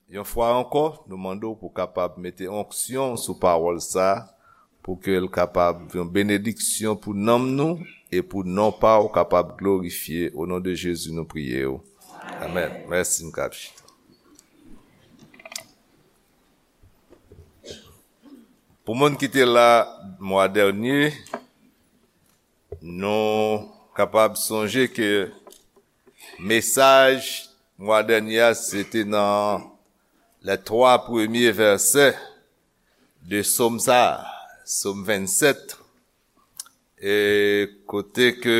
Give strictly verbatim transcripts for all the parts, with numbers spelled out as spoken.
Yon fwa ankò, nou mande w pou w kapab mete onksyon sou pawòl sa a, pou ke l kapab yon benediksyon pou nanm nou e pou non pa w kapab glorifye. O non de Jezi, nou priye w. Amèn. Mèsi, n ka chita. Pou moun ki te la mwa dènye, nou kapab sonje ke mesaj mwa dènye a, se te nan les trois premiers versets de Sòm sa, Sòm vennsèt, e kote ke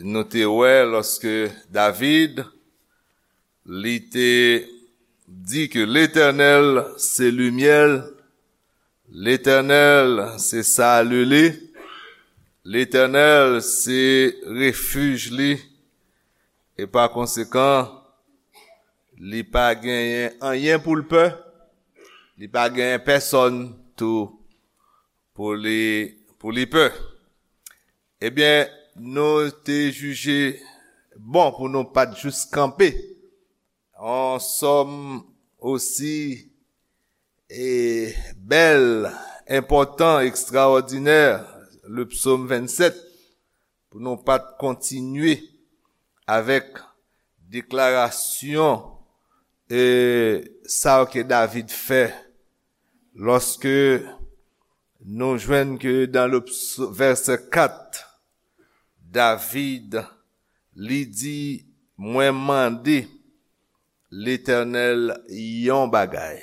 nou te wè lòske David, li te di ke Letènèl se limyè l, Letènèl se sali li, Letènèl se refij li, e pa konsekan, li pa genyen anyen pou l pè, li pa genyen pèsòn tou pou li, pou li pè. Ebyen, nou te jije bon pou nou pa t jis kanpe yon sòm osi e bèl, enpòtan, ekstraòdinè, le psaume vingt-sept, pou nou pa t kontinye avèk deklarasyon e sa ke David fè lòske nou jwenn ke dans le ps- verset quatre, David, li di, mwen mande Letènèl yon bagay.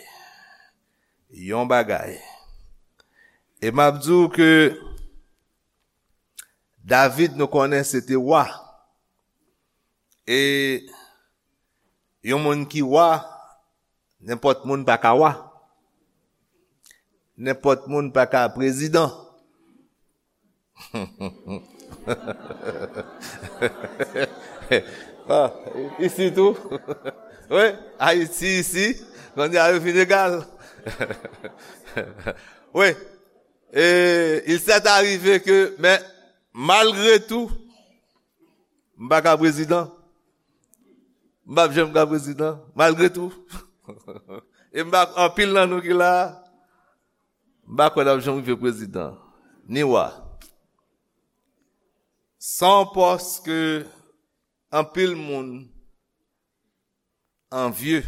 Yon bagay. E m ap di w ke David, nou konnen, se te wa. E yon moun ki wa, nenpòt moun pa ka wa. Nenpòt moun pa ka prezidan. Ah, isi tou. Wi, Ayiti isi, kounye a yo vin egal. Wi, e il s'est arrivé que, men malgre tou, m pa ka prezidan. M p ap janm ka prezidan, malgre tou. E m pa, anpil nan nou ki la a, m pa kwè n ap janm rive prezidan, ni wa. Se yon pòs ke anpil moun anvye.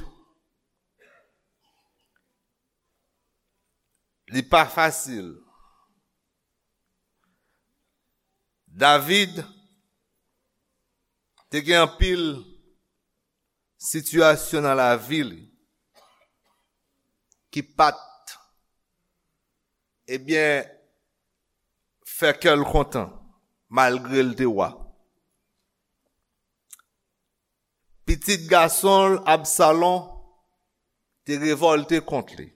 Li pa fasil. David te gen anpil sitiyasyon nan lavi li ki pa t, ebyen, fè kè l kontan, malgre l te wa. Pitit gason l, Absalon, te revòlte kont li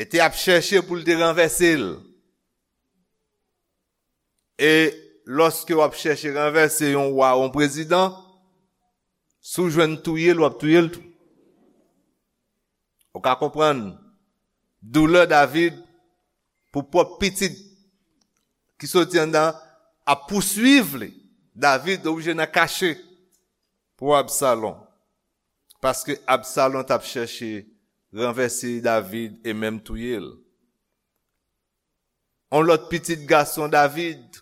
e te ap chèche pou l te ranvèse l. E lòske w ap chèche ranvèse yon wa, yon prezidan, si w jwenn touye l, w ap touye l tou. Ou ka konprann doulè David pou pwòp pitit ki soti anndan ap pouswiv li. David oblije nan kache pou Absalon. Paske Absalon t ap chèche ranvèse David e menm touye l. Yon lòt pitit gason David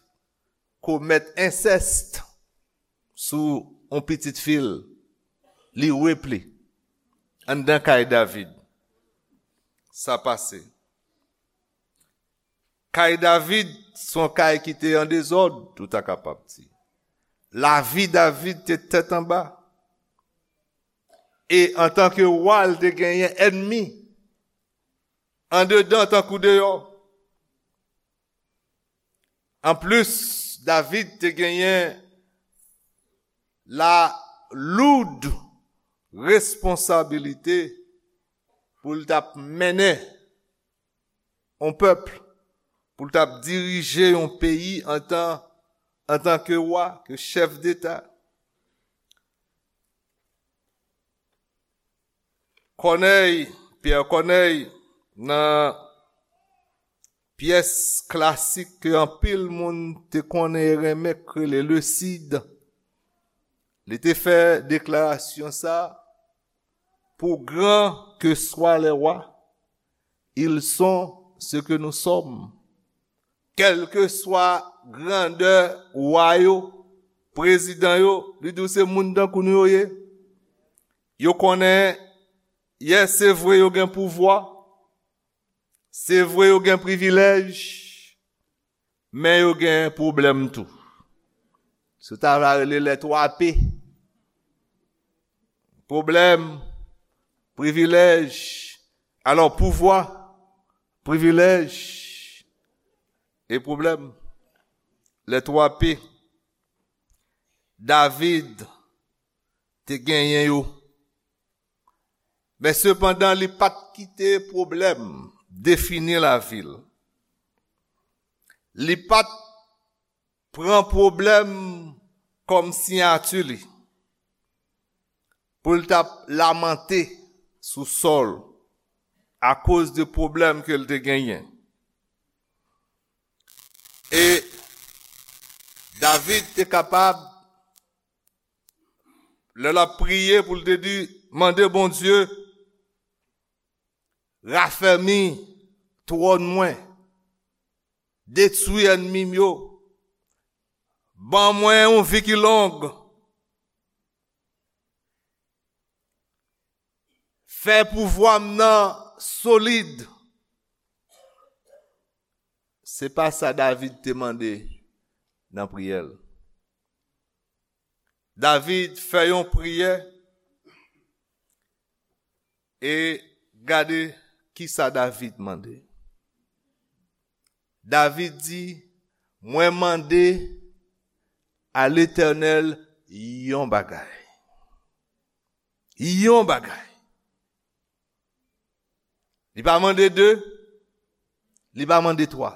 komèt ensèst sou yon pitit fi l. Li repli anndan kay David. Sa pase. Kay David se yon kay ki te an dezòd, ou ta kapab di. Lavi David te tèt anba. E antanke wa, l te genyen ènmi, andedan tankou deyò. Anplis, David te genyen la loud responsabilite pou l t ap mennen yon pèp, pou l t ap dirije yon peyi antan, antanke wa, ke chèf deta. Kònèy, Pyè Kònèy, nan pyès klasik ke anpil moun te konnen e renmen, k rele Le Cid, li te fè deklarasyon sa a, pour grands que soient les rois, ils sont ce que nous sommes. Kèlkeswa grandè wa yo, prezidan yo, li di w se moun tankou nou yo ye. Yo konnen, yè, se vre yo gen pouvwa, se vre yo gen privilèj, men yo gen pwoblèm tou. Se ta va rele les trois P. Pwoblèm, privilèj, alò pouvwa, privilèj e pwoblèm. Les trois P. David te genyen yo. Men sepandan, li pa t kite pwoblèm defini lavi l. Li pa t pran pwoblèm kòm siyati li pou l t ap lamante sou Sòl akoz de pwoblèm ke l te genyen. E David te kapab, lè l ap priye pou l te di, mande Bondye, rafèmi twòn mwen, detwi ènmi m yo, ban mwen yon vi ki long, fè pouvwa m nan solid. Se pa sa David te mande nan priyè l. David fè yon priyè e gade kisa David mande. David di, mwen mande a Letènèl yon bagay. Yon bagay. Li pa mande de, li pa mande twa.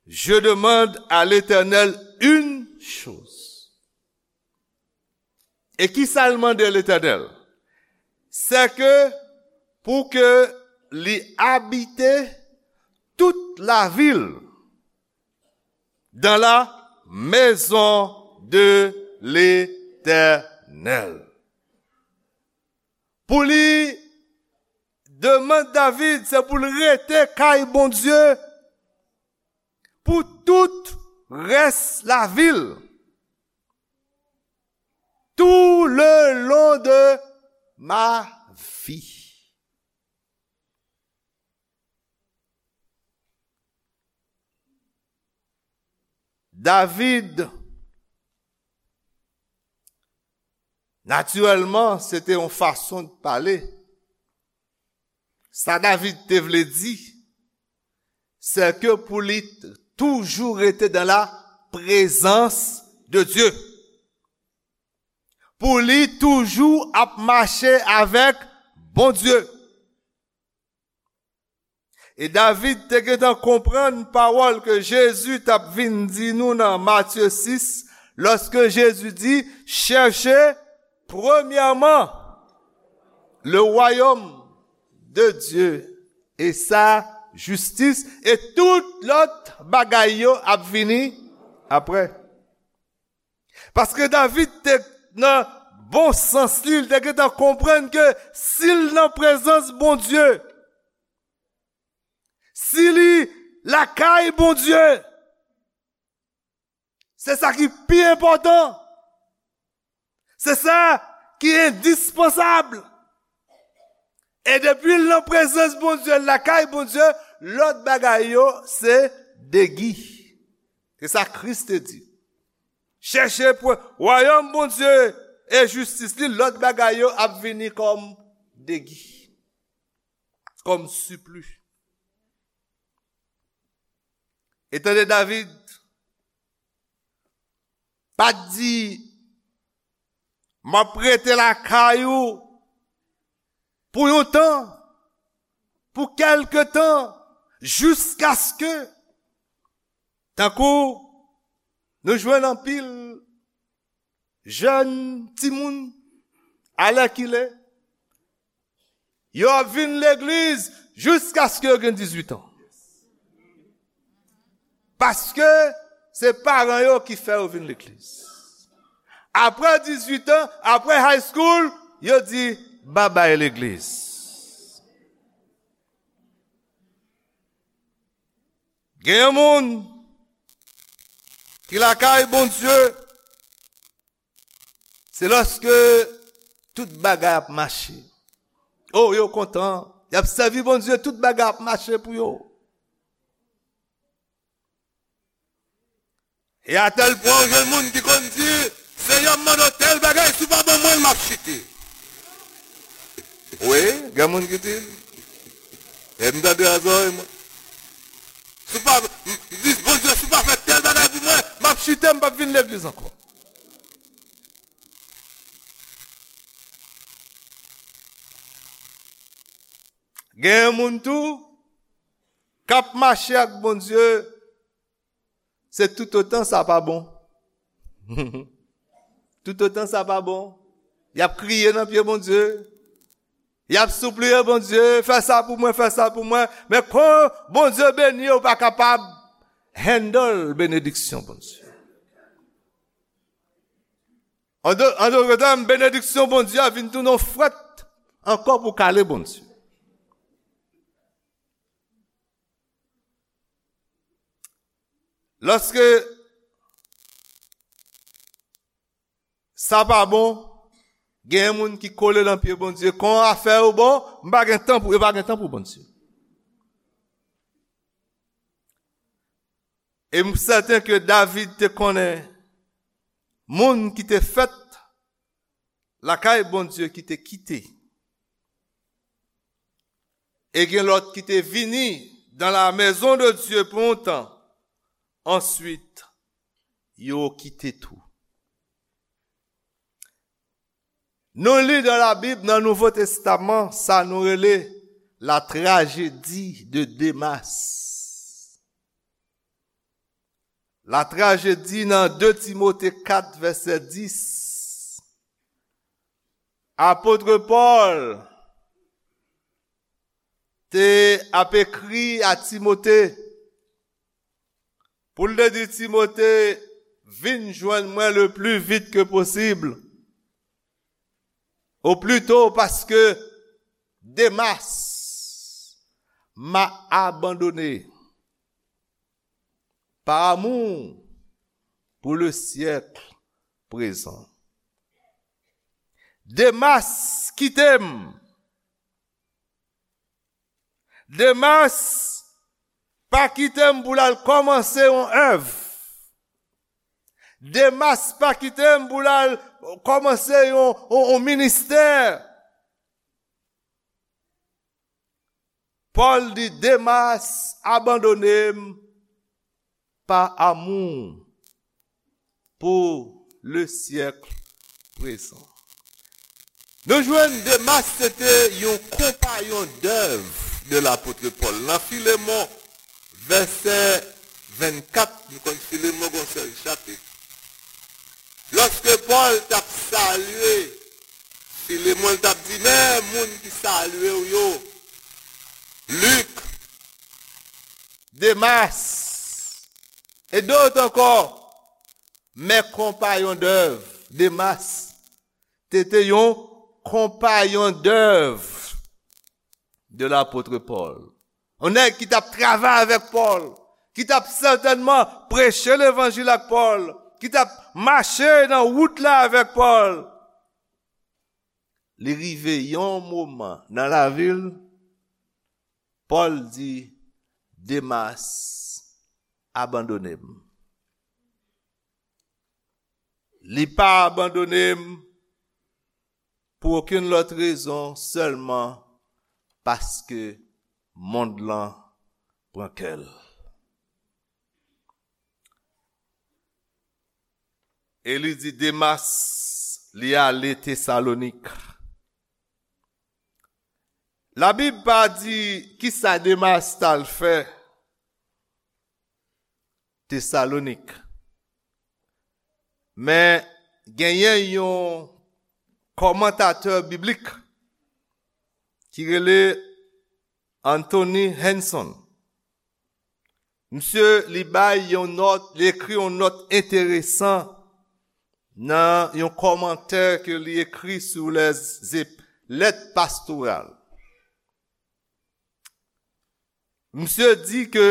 Je demande à l'Éternel une chose. E kisa l mande Letènèl? Se ke pou ke li abite tout la vil dans la maison de l'Éternel. Pou li, demann David, se pou l rete kay Bondye pou tout rès lavi l. Tout le long de ma vie. David, natirèlman, se te yon fason de pale. Sa David te vle di, se ke pou li t-, toujou rete dans la présence de Dieu. Pou li toujou ap mache avèk Bondye. E David te gentan konprann pawòl ke Jezi t ap vin di nou nan Matye sis, lòske Jezi di, cherchez premièrement le royaume de Dieu et sa justice, et tout lòt bagay yo ap vini apre. Paske David te nan bon sans li, li te gentan konprann ke si l nan prezans Bondye, si li lakay Bondye, se sa ki pi enpòtan. Se sa ki endispansab. E depi l nan prezans Bondye, l lakay Bondye, lòt bagay yo se degi. Se sa Kris te di. Chèche pou wayòm Bondye e jistis li, lòt bagay yo ap vini kòm degi, kòm sipli. E tande David, pa t di, m ap rete lakay ou pou yon tan, pou kèlke tan, jiskaske, tankou nou jwenn anpil jèn timoun, alèkile, yo ap vin legliz jiskaske yo gen dizuit an. Paske se paran yo ki fè yo vin legliz. Apre dizuit an, apre high school, yo di, Babay legliz. Gen yon moun ki lakay Bondye, se lòske tout bagay ap mache. O, yo kontan, y ap sèvi Bondye, tout bagay ap mache pou yo. E atèl pwen, ou jwenn moun ki konn di, "Senyè, m mande w tèl bagay, si w pa ban mwen l, m ap chite." Wi, gen moun ki di l. E m tande a zòrèy mwen. "Si w pa, m di, Bondye, si w pa fè tèl bagay pou mwen, m ap chite, m p ap vin legliz ankò." Gen moun tou k ap mache ak Bondye, se toutotan sa pa bon. Toutotan sa pa bon, y ap kriye nan pye Bondye. Y ap sipliye Bondye, "Fè sa pou mwen, fè sa pou mwen." Men kon Bondye beni, ou pa kapab handle benediksyon Bondye. An dò-, an dòt tèm, benediksyon Bondye a vin tounen yon frèt ankò pou kale Bondye. Lòske sa pa bon, gen moun ki kole nan pye Bondye. Kon afè yo bon, m pa gen tan pou, yo pa gen tan pou Bondye. E m sèten ke David te konnen moun ki te fèt lakay Bondye ki te kite. E gen lòt ki te vini dans la maison de Dieu pou yon tan. Answit, yo kite tou. Nou li dans la Bible, nan Nouvo Testaman, sa nou rele la tragédie de Demas. La tragédie nan de Timote kat, vèsè dis. Apot Pòl te ap ekri a Timote, pou l te di Timote, "Vin jwenn mwen le plus vite que possible, au plus tôt, parce que Demas m'a abandonné par amour pour le siècle présent." Demas kite m. Demas pa kite m pou l al kòmanse yon èv. Demas pa kite m pou l al kòmanse yon, yon, yon ministè. Pòl di, Demas abandone m pa amour pour le siècle présent. Nou jwenn Demas se te yon konpayon dèv de lapot Pòl. Nan Filemon, vèsè vennkat, nou konn Filemon gon sèl chapit. Lòske Pòl t ap salye Filemon, l t ap di, "Men moun ki salye w yo, Lik, Demas, e dòt ankò, mes compagnons d'œuvre." Demas te te yon konpayon dèv de lapot Pòl. Yon nèg ki t ap travay avèk Pòl, ki t ap sètènman preche levanjil ak Pòl, ki t ap mache nan wout la avèk Pòl. Li rive yon moman nan lavi l, Pòl di, Demas abandone m. Li pa abandone m pou okenn lòt rezon, sèlman paske mond lan pran kè l. E li di Demas, li ale Tesalonik. Labib pa di kisa Demas t al fè Tesalonik. Men genyen yon kòmantatè biblik ki rele Anthony Hanson. Misye, li bay yon nòt, li ekri yon nòt enteresan nan yon kòmantè ke li ekri sou les ép-, lèt pastoral. Misye di ke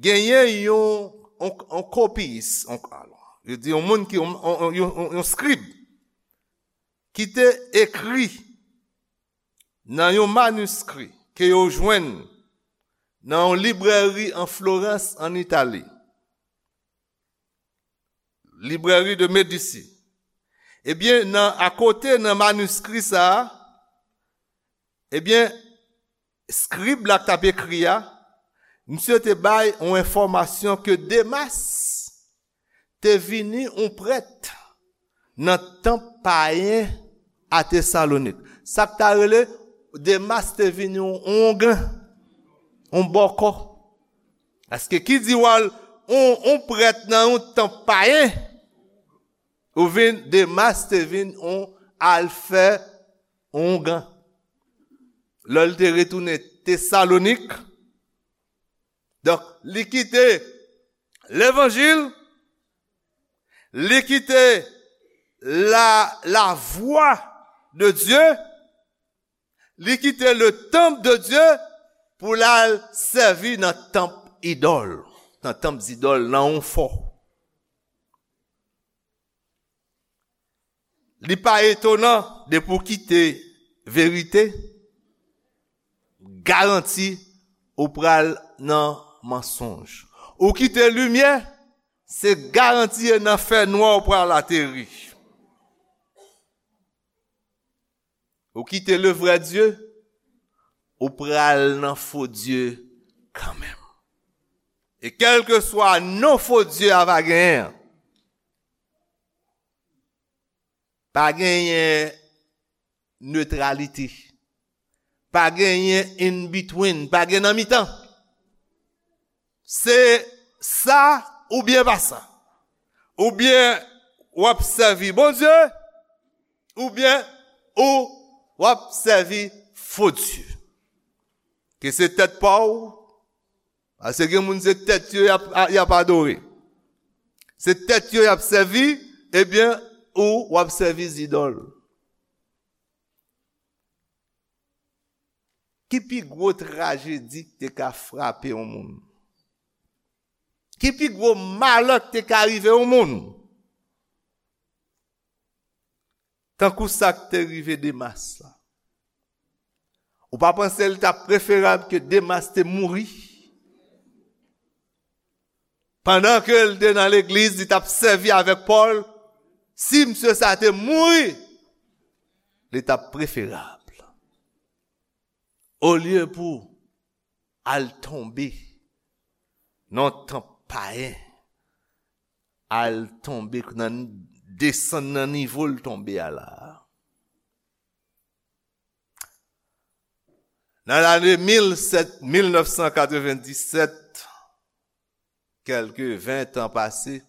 genyen yon, yon, yon kopiyis, yon, yo di yon moun ki, yon, yon, yon, yon, yon skrib ki te ekri nan yon maniskri ke yo jwenn nan yon librèri an Florans, an Itali. Librèri de Medici. Ebyen, nan, akote nan maniskri sa a, ebyen, skrib la k t ap ekri a, misye te bay yon enfòmasyon ke Demas te vini yon prèt nan tanp payen a Tesalonik. Sa k ta rele Demas te vini yon, yon ongan, yon bòkò. Paske ki di w al yon, yon prèt nan yon tanp payen, ou vin, Demas te vin yon al fè yon ongan. Lè l te retounen Tesalonik, donk, li kite levanjil, li kite la, la vwa de Dye, li kite le tanp de Dye pou l al sèvi nan tanp idòl, nan tanp zidòl, nan yon fò. Li pa etonan depi w kite verite, garanti ou pral nan mansonj. Ou kite limyè, se garanti e nan fènwa ou pral ateri. Ou kite le vrè Dye, ou pral nan fo dye kanmenm. E kèlkeswa non fo dye a va genyen an, pa genyen netralite. Pa genyen in between, pa gen nan mitan. Se sa oubyen pa sa. Oubyen w ap sèvi Bondye, oubyen ou w ap sèvi fo dye. Ke se tèt pa w, paske gen moun se tèt yo y ap, y ap adore. Se tèt yo y ap sèvi, ebyen, ou w ap sèvi zidòl. Ki pi gwo trajedi ki te ka frape yon moun? Ki pi gwo malè ki te ka rive yon moun? Tankou sa k te rive Demas la. Ou pa panse li t ap preferab ke Demas te mouri? Pandan ke l te nan legliz, li t ap sèvi avèk Pòl. Si misye sa te mouri, li t ap preferab. Olye pou al tonbe nan tanp payen, al tonbe nan, desann nan nivo l tonbe a la. Nan lane mil sèt, mil nèf san katrevenndisèt, kèlke ven tan pase,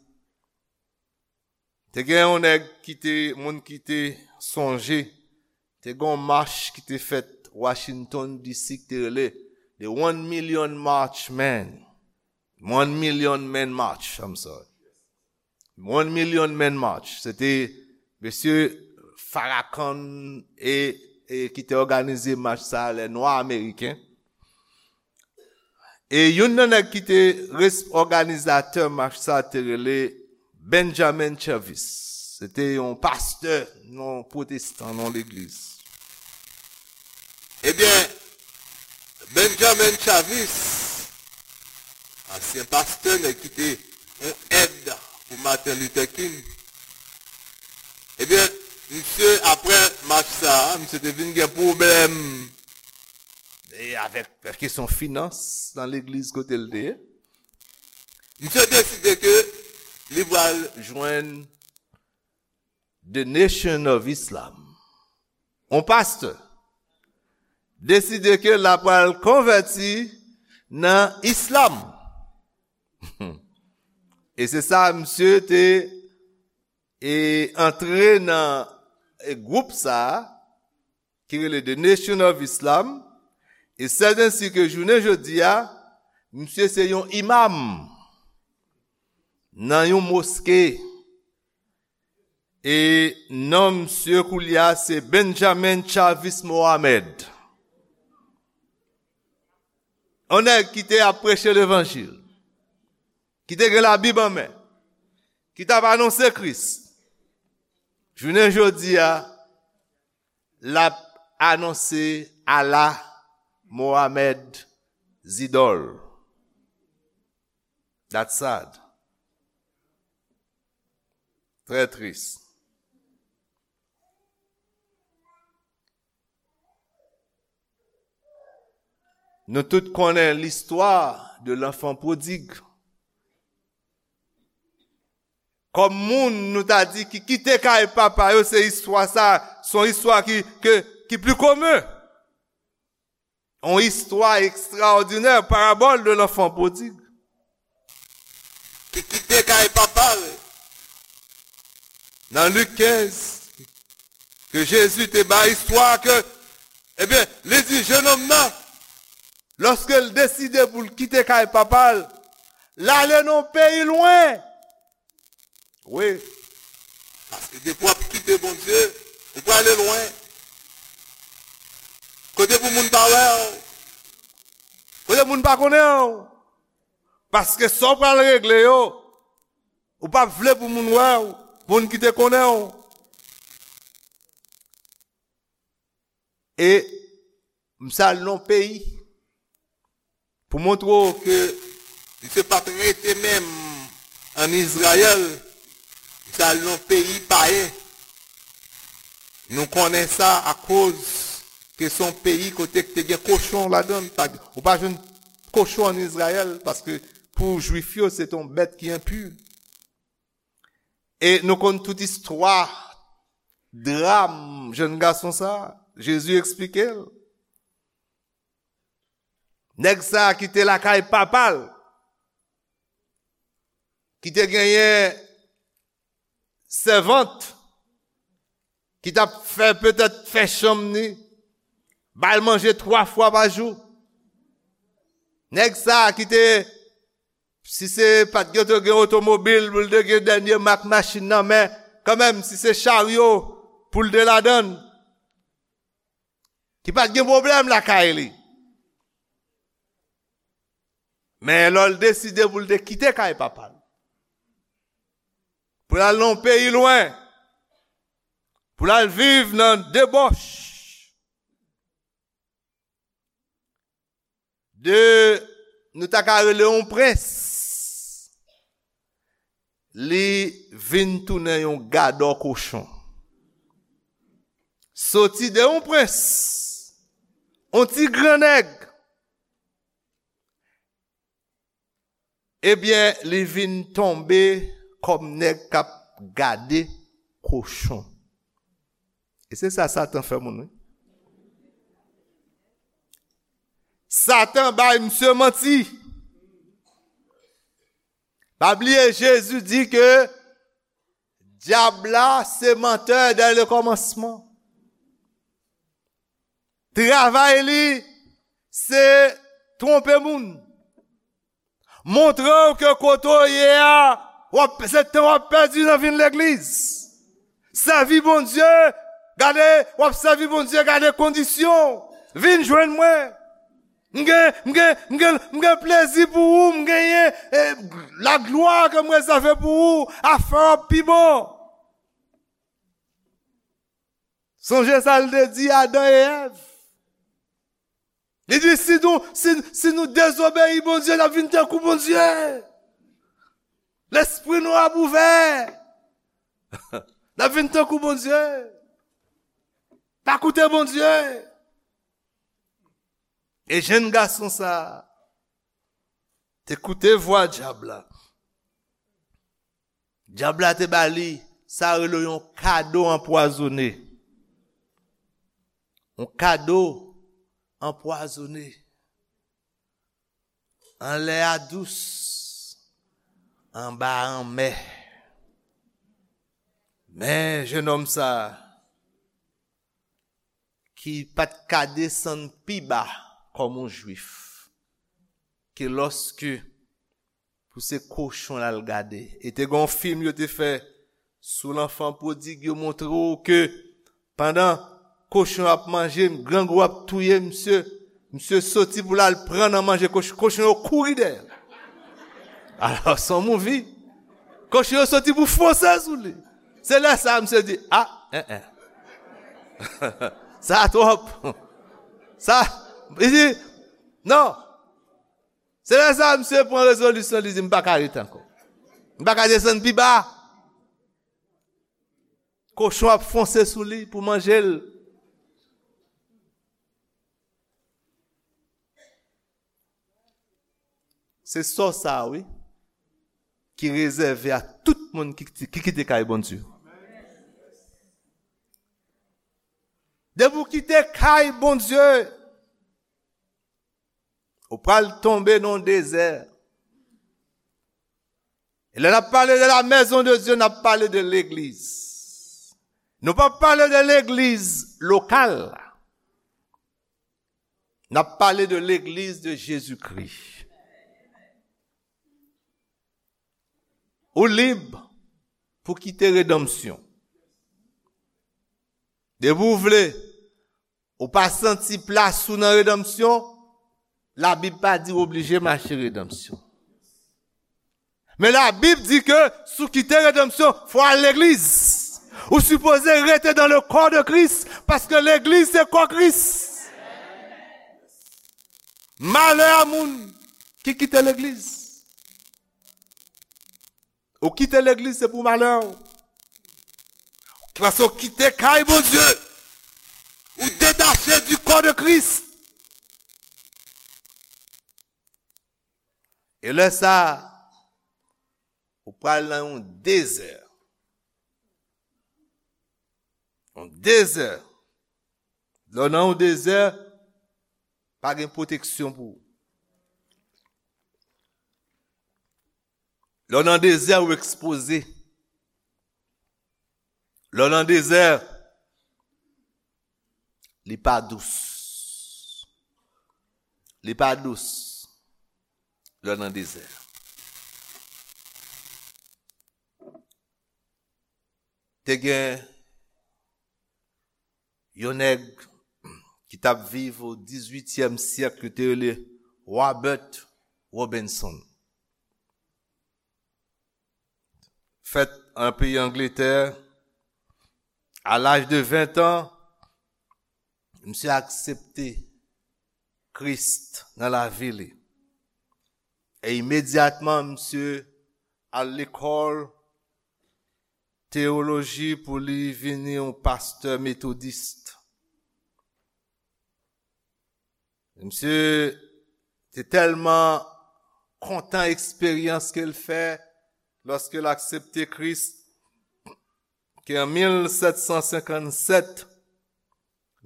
te gen yon nèg ki te, moun ki te sonje, te gen yon mach ki te fèt Washington D C ki te rele The One Million March Man. One Million Man March, I'm sorry. One Million Man March. Se te mesye Farrakhan e, e ki te òganize mach sa a, lè nwa ameriken. E youn nan nèg ki te res-, òganizatè mach sa a te rele Benjamin Chavis. Se te yon pastè, yon pwotestan, nan legliz. Ebyen, Benjamin Chavis, ansyen pastè, nèg ki te yon èd pou Martin Luther King. Ebyen, misye, apre mach sa a, misye te vin gen pwoblèm e avèk kesyon finans nan legliz kote l te ye. Misye deside ke li pral jwenn The Nation of Islam. Yon pastè deside ke l ap pral konvèti nan islam. E se sa misye te, e antre nan, e gwoup sa a, ki rele The Nation of Islam, e sèt ensi ke jounen jodi a, misye se yon imam nan yon moske. E non misye koulye a se Benjamin Chavis Mohammed. Yon nèg ki te ap preche levanjil, ki te gen Labib an men, ki t ap anonse Kris. Jounen jodi a, l ap anonse Allah, Mohammed, zidòl. That's sad. Trè tris. Nou tout konnen l'histoire de l'enfant prodigue. Kòm moun, nou ta di, ki kite kay papa yo, se istwa sa, se yon istwa ki, ke, ki pi komen. Yon istwa ekstraòdinè, parabòl de l'enfant prodigue. Ki kite kay papa l. Nan Lik kenz, ke Jezi te bay istwa ke, ebyen, li di jenòm nan, lòske l deside pou l kite kay papa l, l ale nan yon peyi lwen. Wi. Paske depi w ap kite Bondye, ou prale lwen. Kote pou moun pa wè w. Kote moun pa konnen w. Paske sa w pral regle yo, ou p ap vle pou moun wè w, moun ki te konnen w. E m sa al nan yon peyi pou montre w ke misye pa t rete menm ann Izrayèl, misye al nan yon peyi payen. Nou konnen sa akoz ke se yon peyi kote k te gen kochon ladan l. Pa, ou pa jwenn kochon ann Izrayèl, paske pou Jwif yo, se te yon bèt ki enpi. E nou konn tout istwa, dram jèn gason sa a. Jezi eksplike l. Nèg sa a ki te lakay papa l, ki te genyen sèvant, ki t ap fè, petèt, fè chanm ni, ba l manje twa fwa pa jou. Nèg sa a ki te, si se pa t gen, te gen otomobil, pou l te gen dènye mak machin nan, men kanmenm, si se charyo pou l te ladan l, ki pa t gen pwoblèm lakay li. Men lè l deside pou l te kite kay papa l, pou l al nan yon peyi lwen, pou l al viv nan debòch, de, nou ta ka rele yon prens, li vin tounen yon gadò kochon. Soti de yon prens, yon ti gran nèg, ebyen, li vin tonbe kòm nèg k ap gade kochon. E se sa Satan fè moun, wi. Satan bay misye manti. Pa bliye, Jezi di ke dyab la se mantè dè le kòmansman. Travay li, se twonpe moun. Montre w ke kote w ye a, w ap, se tan w ap pèdi nan vin legliz. Sèvi Bondye, gade, w ap sèvi Bondye, gade kondisyon. Vin jwenn mwen. M gen, m gen, m gen, m gen plezi pou ou, m genyen, eh, laglwa ke m rezève pou ou, afè w ap pi bon. Sonje sa l te di Adan e Èv. Li di, si nou, si, si nou dezobeyi Bondye, n ap vin tankou Bondye. Lespri nou ap ouvè. N ap vin tankou Bondye. Pa koute Bondye. E jèn gason sa a te koute vwa dyab la. Dyab la te ba li, sa rele yon kado anpwazone. Yon kado anpwazone. Anlè a dous, anba a anmè. Men jennonm sa a, ki pa t ka desann pi ba kòm yon Jwif, ke lòske pou se kochon l al gade. E te gen yon fim yo te fè Sou lanfan pwodig, yo montre w ke pandan kochon ap manje, grangou ap touye misye, misye soti pou l al pran nan manje kochon, kochon yo kouri dèyè. Alò, se yon movie. Kochon yo soti pou fonse sou li. Se lè sa a misye di, a, en, en. Sa twòp. Sa, li di, non. Se lè sa a misye pran rezolisyon, li di, m pa ka rete ankò. M pa ka desann pi ba. Kochon ap fonse sou li pou manje l. Se sò sa a, wi, ki rezève a tout moun ki, ki kite kay Bondye. Depi w kite kay Bondye, ou pral tonbe nan yon dezè. E lè n ap pale de la maison de Dieu, n ap pale de legliz. Nou p ap pale de legliz lokal. N ap pale de legliz de Jezikri. Ou lib pou kite redanmsyon. Depi w vle, ou pa santi plas ou nan redanmsyon, Labib pa di w oblije mache redanmsyon. Men Labib di ke si w kite redanmsyon, fò w al legliz. Ou sipoze rete dans le corps de Christ, paske legliz se kò Kris. Malè a moun ki kite legliz. Ou kite legliz, se pou malè w. Paske w kite kay Bondye. Ou detache du corps de Christ. E lè sa a, ou pral nan yon dezè. Yon dezè. Lè w nan yon dezè, pa gen pwoteksyon pou ou. Lè w nan dezè, ou ekspoze. Lè w nan dezè, li pa dous. Li pa dous. Lè w nan dezè. Te gen yon nèg ki t ap viv o dizuityèm syèk, yo te rele Robert Robinson. Fèt an peyi Angletè, a laj de ven an, misye aksepte Kris nan lavi li. E imedyatman, misye al lekòl teyoloji pou li vini yon pastè metodis. Misye te tèlman kontan eksperyans ke l fè lòske l aksepte Kris, ke an mil sèt san senkann sèt,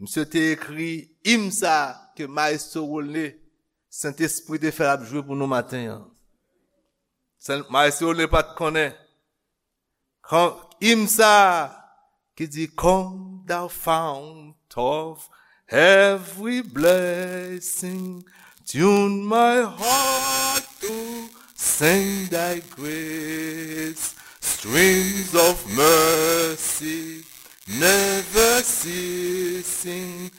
misye te ekri im sa a ke Maestro Rolne, Sentespri te fè l ap jwe pou nou maten an. Sen-, Maestro Rolne pa t konnen. Kan, im sa a ki di, "Come, thou fount of every blessing, tune my heart to sing thy grace, streams of mercy never ceasing,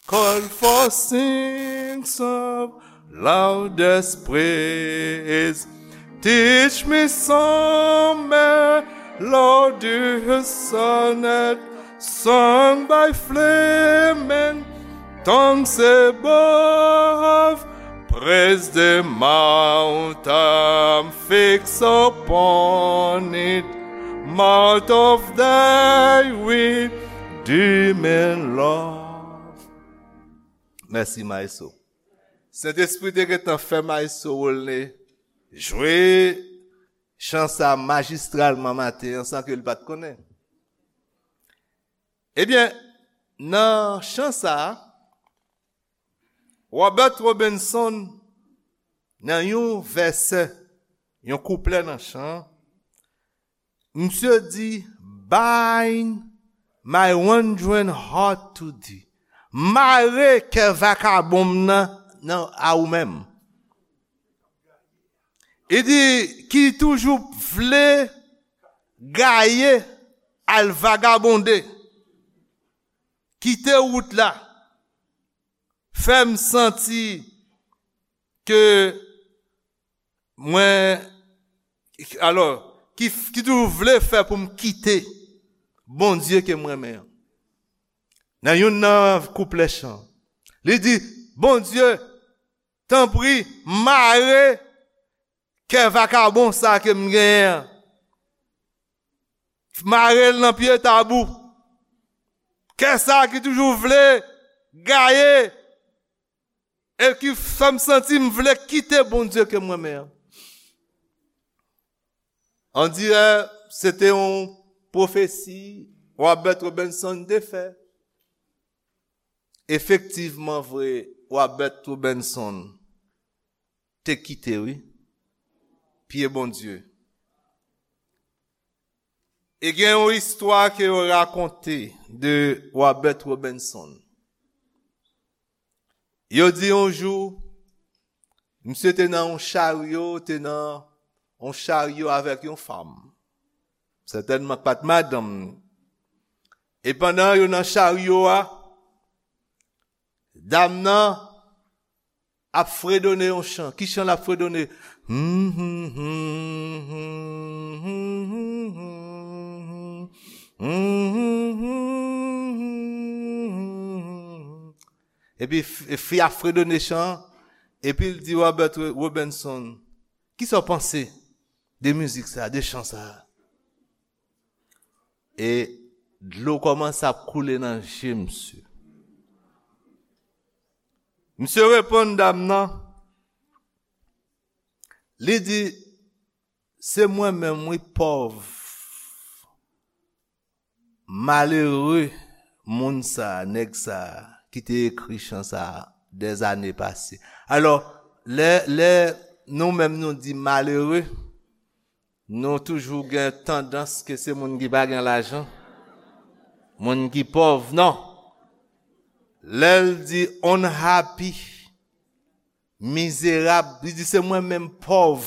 call for sings of loudest praise. Teach me some melodious sonnet sung by flaming tongues above. Praise the mount, I'm fixed upon it, mount of thy redeeming love." Mèsi, Maestro. Sentespri te gentan fè Maestro Rolne jwe chan sa majistralman maten an san ke l pa t konnen. Ebyen, nan chan sa a, Robert Robinson, nan yon vèsè, yon kouplè nan chan an, misye di, "Bind my wandering heart to thee." Mare kè vakabon m nan, nan a ou menm. Li di, "Ki toujou vle gaye al vagabonde, kite wout la, fè m santi ke mwen, alò, ki, ki toujou vle fè pou m kite Bondye ke m renmen an. Nan youn nan kouplè chan, li di, Bondye, tanpri, mare kè vakabon sa ke m genyen an. Mare l nan pye tab ou. Kè sa ki toujou vle gaye e ki fè m santi m vle kite Bondye ke m renmen an. On dirè se te yon pwofesi Robert Robinson te fè. Efektivman vre, Robert Robinson te kite, wi, pye Bondye. E gen yon istwa ke yo rakonte de Robert Robinson. Yo di yon jou, misye te nan yon charyo, te nan yon charyo avèk yon fanm. Sètènman, pa t madanm li. E pandan yo nan charyo a, dam nan ap fredone yon chan. Ki chan l ap fredone? Epi f-, fi a fredone chan, epi l di Robert Robinson, kisa w panse de mizik sa, de chan sa? E dlo kòmanse ap koule nan je misye. Misye reponn dam nan, li di, se mwen menm, wi, pòv, malere moun sa, nèg sa, ki te ekri chan sa dèzane pase. Alò, lè, lè nou menm nou di malere, nou toujou gen tandans ke se moun ki pa gen lajan, moun ki pòv, non. Lè l di unhappy, mizerab, li di se mwen menm pòv,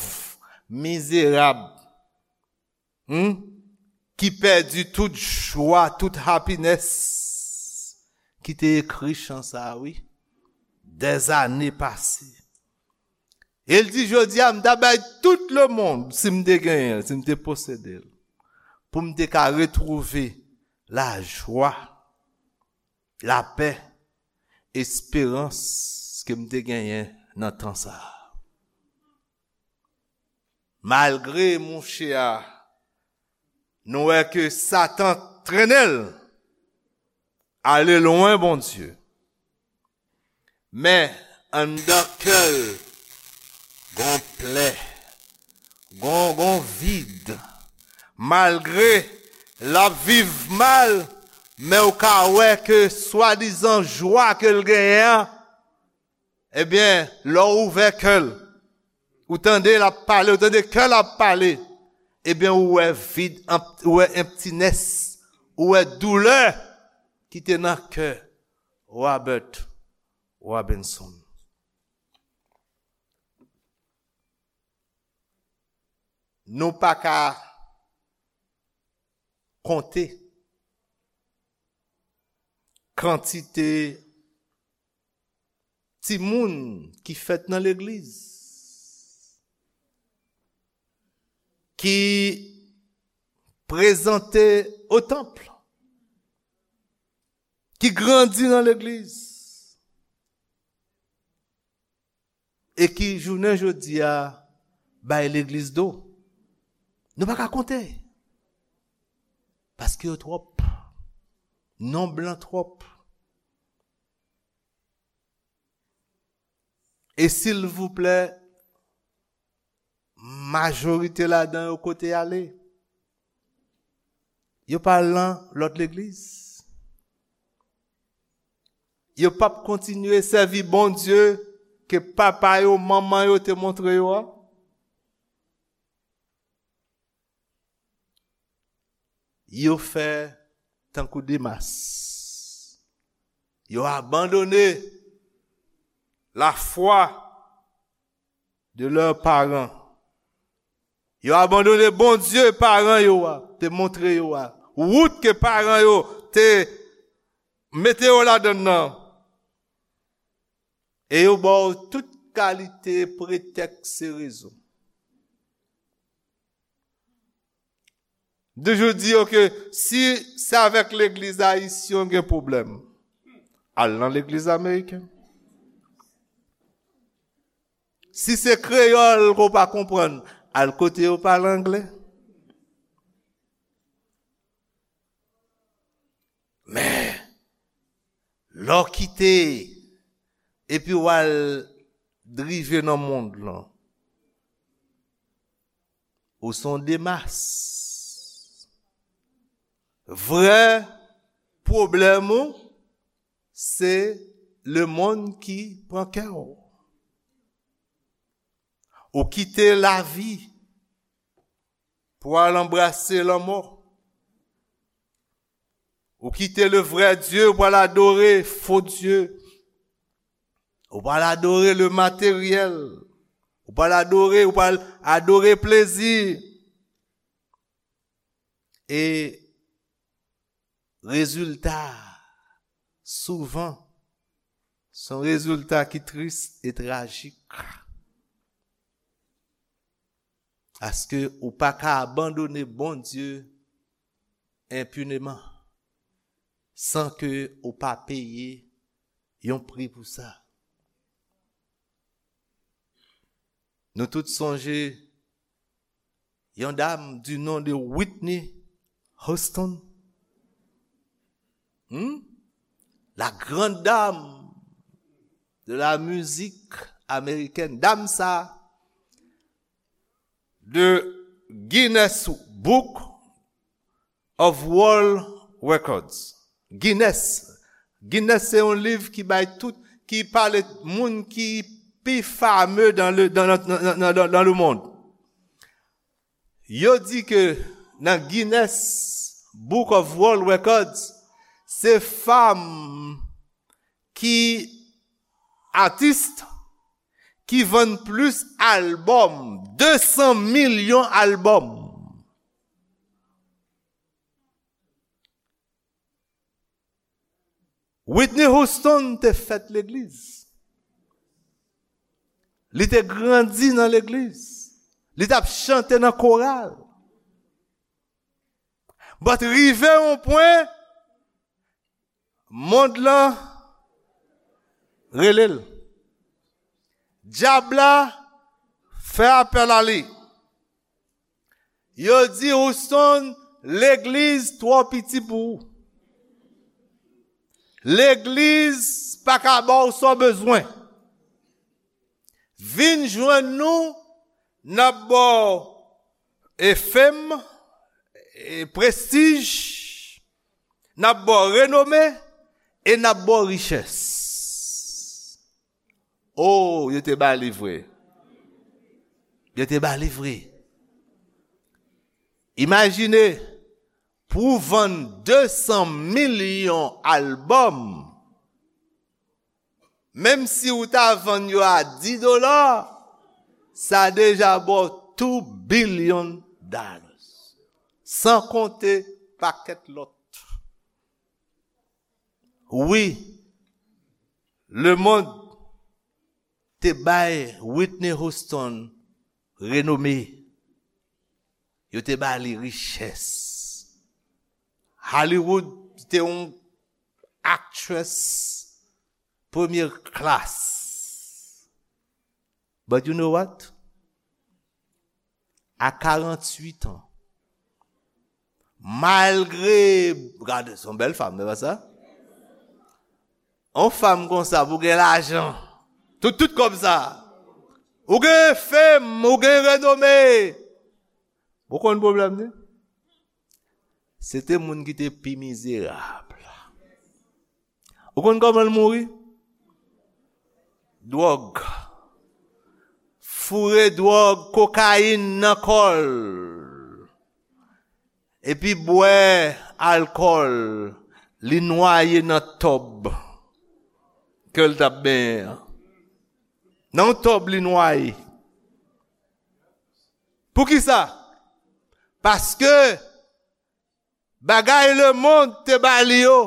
mizerab, hmm, ki pèdi tout jwa, tout happiness, ki te ekri chan sa, wi, dèzane pase. E l di, jodi a, m ta bay tout lemonn, si m te genyen l, si m te posede l, pou m te ka retwouve lajwa, lapè, esperans ke m te genyen nan tan sa a. Malgre mouche a, nou wè ke Satan trennen l ale lwen Bondye. Men, anndan kè l, gon plè, gon, gon vid. Malgre l ap viv mal, men ou ka wè ke swadizan jwa ke l genyen an, ebyen, lè w ouvè kè l, ou tande l ap pale, ou tande kè l ap pale, ebyen, ou wè vid, ou wè emptiness, ou wè doulè ki te nan kè Robert Robinson. Nou pa ka konte kantite timoun ki fèt nan legliz, ki prezante o tanp, ki grandi nan legliz, e ki jounen jodi a bay legliz do. Nou pa ka konte. Paske yo twòp. Nonb lan twòp. E silvouplè, majorite ladan yo kote y ale? Yo pa al nan lòt legliz. Yo p ap kontinye sèvi Bondye ke papa yo, manman yo te montre yo a. Yo fè tankou Demas. Yo abandone lafwa de lè paran. Yo abandone Bondye paran yo a te montre yo a. wout ke paran yo te mete yo ladan l nan. E yo ba w tout kalite pretèks e rezon. M toujou di yo ke si se avèk legliz ayisyen w gen pwoblèm, al nan legliz ameriken. Si se kreyòl ke w pa konprann, al kote yo pale anglè. Men, lè w kite epi w al rive nan mond lan, ou se yon demas. Vrè pwoblèm ou, se lemonn ki pran kè w. Ou kite lavi pou al anbrase lanmò. Ou kite le vrè Dye pou al adore fo dye. Ou pral adore le materyèl. Ou pral adore, ou pral adore plezi. E rezilta, souvan, se yon rezilta ki tris e trajik. Paske ou pa ka abandone Bondye enpineman san ke ou pa peye yon pri pou sa. Nou tout sonje yon dam du nom de Whitney Houston. Hmm? La grande dame de la musique américaine. Dam sa, de Guinness Book of World Records. Guinness. Guinness se yon liv ki bay tout, ki pale moun ki pi fame dans le, dans, dans, dans, dans, dans le monde. Yo di ke nan Guinness Book of World Records, se fanm ki atis ki vann plis albòm, de san milyon albòm. Whitney Houston te fèt legliz. Li te grandi nan legliz. Li t ap chante nan koral. But rive yon pwen, mond lan rele l. Dyab la fè apèl a li. Yo di, Houston, legliz twò piti pou ou. Legliz pa ka ba w sa w bezwen. Vin jwenn nou, n ap ba w e fame, e prestij, n ap ba w renome, e n ap ba w richès. Oh, yo te ba li vre. Yo te ba li vre. Imajine, pou w vann de san milyon albòm, menm si w ta vann yo a dis dola, sa deja ba w two billion dollars. San konte pakèt lòt. Wi, lemonn te bay Whitney Houston renome. Yo te ba li richès. Hollywood te yon actress premye klas. But you know what? A karanntuit an, malgre, gade, se yon bèl fanm, se pa sa? Yon fanm konsa, pou gen lajan, tout, tout kòb sa, ou gen fame, ou gen renome, ou konn pwoblèm li? Se te moun ki te pi mizerab. Ou konn kòman l mouri? Dwòg. Foure dwòg, kokayin nan kò l. Epi bwè alkòl, li nwaye nan tòb ke l t ap benyen an. Nan yon tòb li nwaye. Poukisa? Paske Bagay lemonn te ba li yo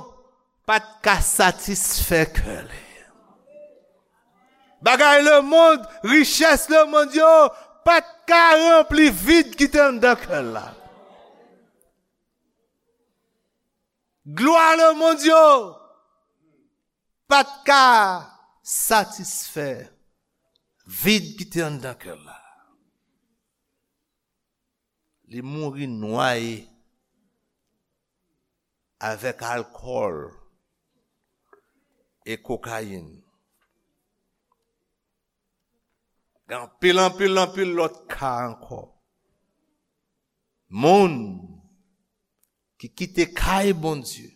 pa t ka satisfè kè li. Bagay lemonn, richès lemonn yo pa t ka ranpli vid ki te anndan kè l la. Glwa lemonn yo pa t ka satisfè vid ki te anndan kè l la. Li mouri nwaye avèk alkòl e kokayin. Gen anpil, anpil, anpil lòt ka ankò. Moun ki kite kay Bondye,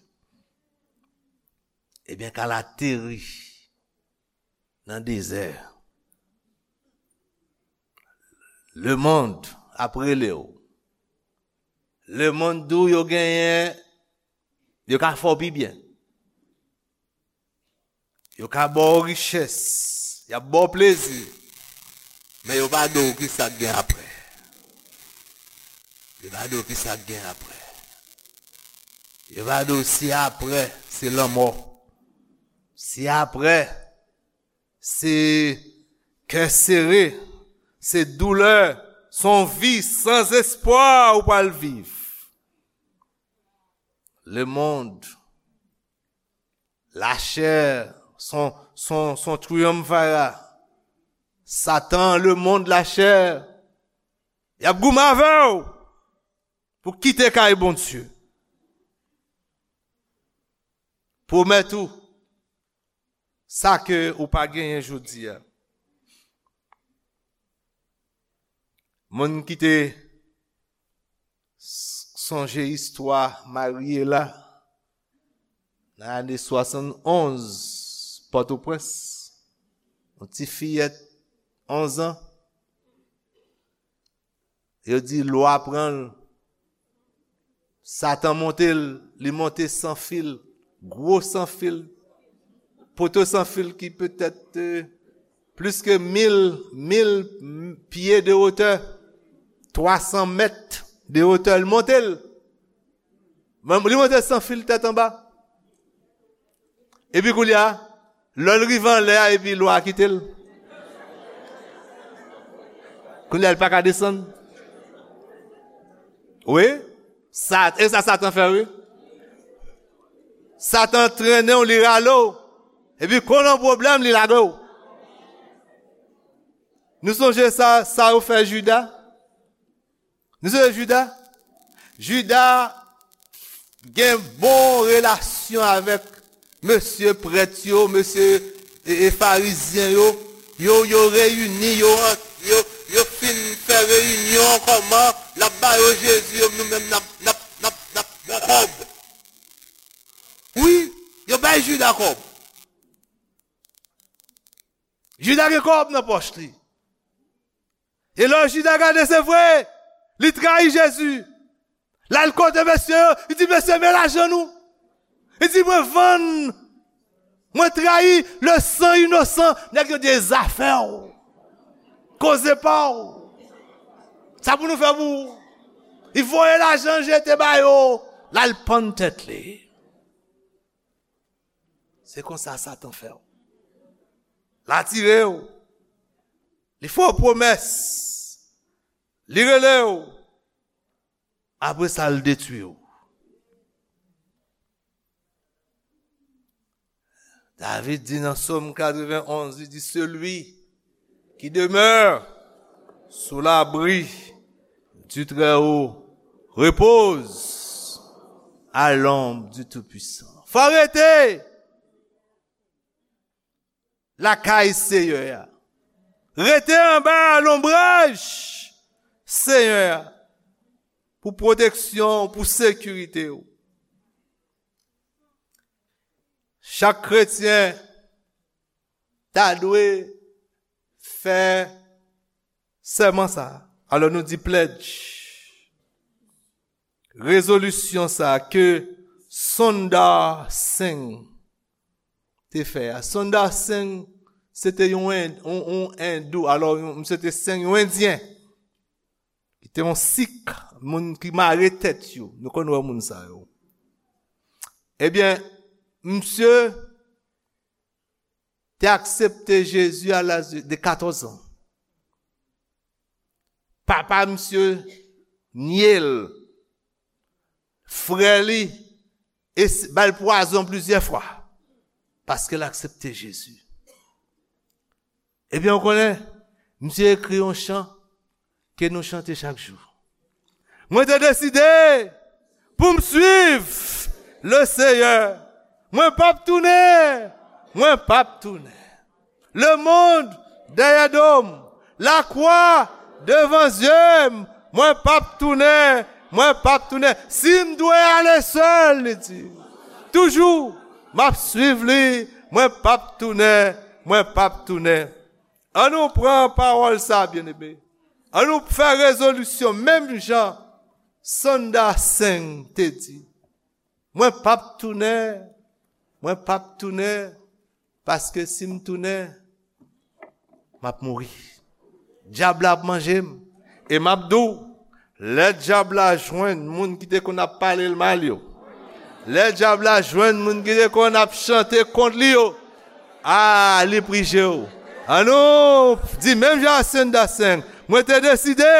ebyen, k al ateri nan dezè. Lemonn ap rele w. Lemonn di w yo genyen, yo ka fè w pi byen. Yo ka ba w richès, y ap ba w plezi, men yo pa di w ki sa k gen apre. Yo pa di w ki sa k gen apre. Yo pa di w si apre, se lanmò. Si apre, se kè sere, se doulè, se yon vi san espwa ou pral viv. Lemonn, lachè, son, son, son triyonfara. Satan, lemonn, lachè, y ap goumen avè w pou kite kay Bondye. Pwomèt ou sa ke ou pa genyen jodi a. Moun ki te s- sonje istwa Mariela nan ane swasannonz, Pòtoprens, yon ti fiyèt onz an, yo di lwa pran l. Satan monte l, li monte san fil, gwo san fil, poto san fil ki petèt, euh, plis ke mil, mil pye de wotè, twa san mèt de wotè, li monte l. Men li monte san fil tèt anba. Epi koulye a, lè l rive anlè a, epi lwa kite l. Koulye a, l pa ka desann. Wi, sa, e sa Satan fè, wi. Satan trennen w, li rale w. Epi, kon nan pwoblèm, li lage w. Nou sonje sa, sa yo fè Jida? Nou sonje Jida? Jida gen bon relasyon avèk mesye prèt yo, mesye, e, e, farizyen yo. Yo, yo reyini, yo, yo, yo fin fè reyinyon, kòman l ap ba yo Jezi, yo, nou menm n ap, n ap, n ap, n ap bon kòb. Wi, yo bay Jida kòb. Jida gen kòb nan pòch li. E lè Jida gade, se vre, li trayi Jezi. L al kote mesye yo, li di, "Mesye, men lajan nou." Li di, "Mwen vann, mwen trayi le san inosan." Nèg yo di, "E zafè w, koze pa w. Sa pou nou fè pou ou?" Li voye lajan jete ba yo, l al pann tèt li. Se konsa Satan fè w. L atire w. Li fè w pwomès. Li rele w. Apre sa, l detwi w. David di nan Sòm katrevenn onz, li di, celui qui demeure sous l'abri du Très-Haut repose à l'ombre du Tout-Puissant. Fò rete lakay Seyè a. Rete anba lonbraj Seyè a pou pwoteksyon, pou sekirite w. Chak kretyen ta dwe fè sèman sa a. Alò nou di pledge. Rezolisyon sa a ke Sundar Singh te fè a. Sundar Singh, se te yon, en- yon, yon endou, alò, yon, misye te Singh, yon endyen, ki te yon sik, moun ki mare tèt yo. Nou konn wè moun sa yo. Ebyen, misye te aksepte Jezi a laj de katòz an. Papa misye nye l. Frè li es- ba l pwazon plizyè fwa paske l aksepte Jezi. Ebyen, w konnen, misye ekri yon chan ke nou chante chak jou. Mwen te deside pou m swiv le Seyè. Mwen p ap tounen. Mwen p ap tounen. Lemonn dèyè do m. Lakwa devan zye m. Mwen p ap tounen. Mwen p ap tounen. Si m dwe ale sèl, li di, toujou, m ap swiv li. Mwen p ap tounen. Mwen p ap tounen. An nou pran pawòl sa, byeneme. An nou fè rezolisyon, menm jan Sanda Seng te di. Mwen p ap tounen. Mwen p ap tounen. Paske si m tounen, m ap mouri. Dyab la ap manje m. E m ap di w, lè dyab la jwenn moun ki te konn ap pale l mal yo, lè dyab la jwenn moun ki te konn ap chante kont li yo, a, li prije w. An nou di menm jan a Senda Seng, mwen te deside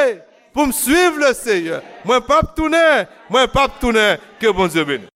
pou m swiv le Seyè. Mwen p ap tounen, mwen p ap tounen. Ke Bondye beni.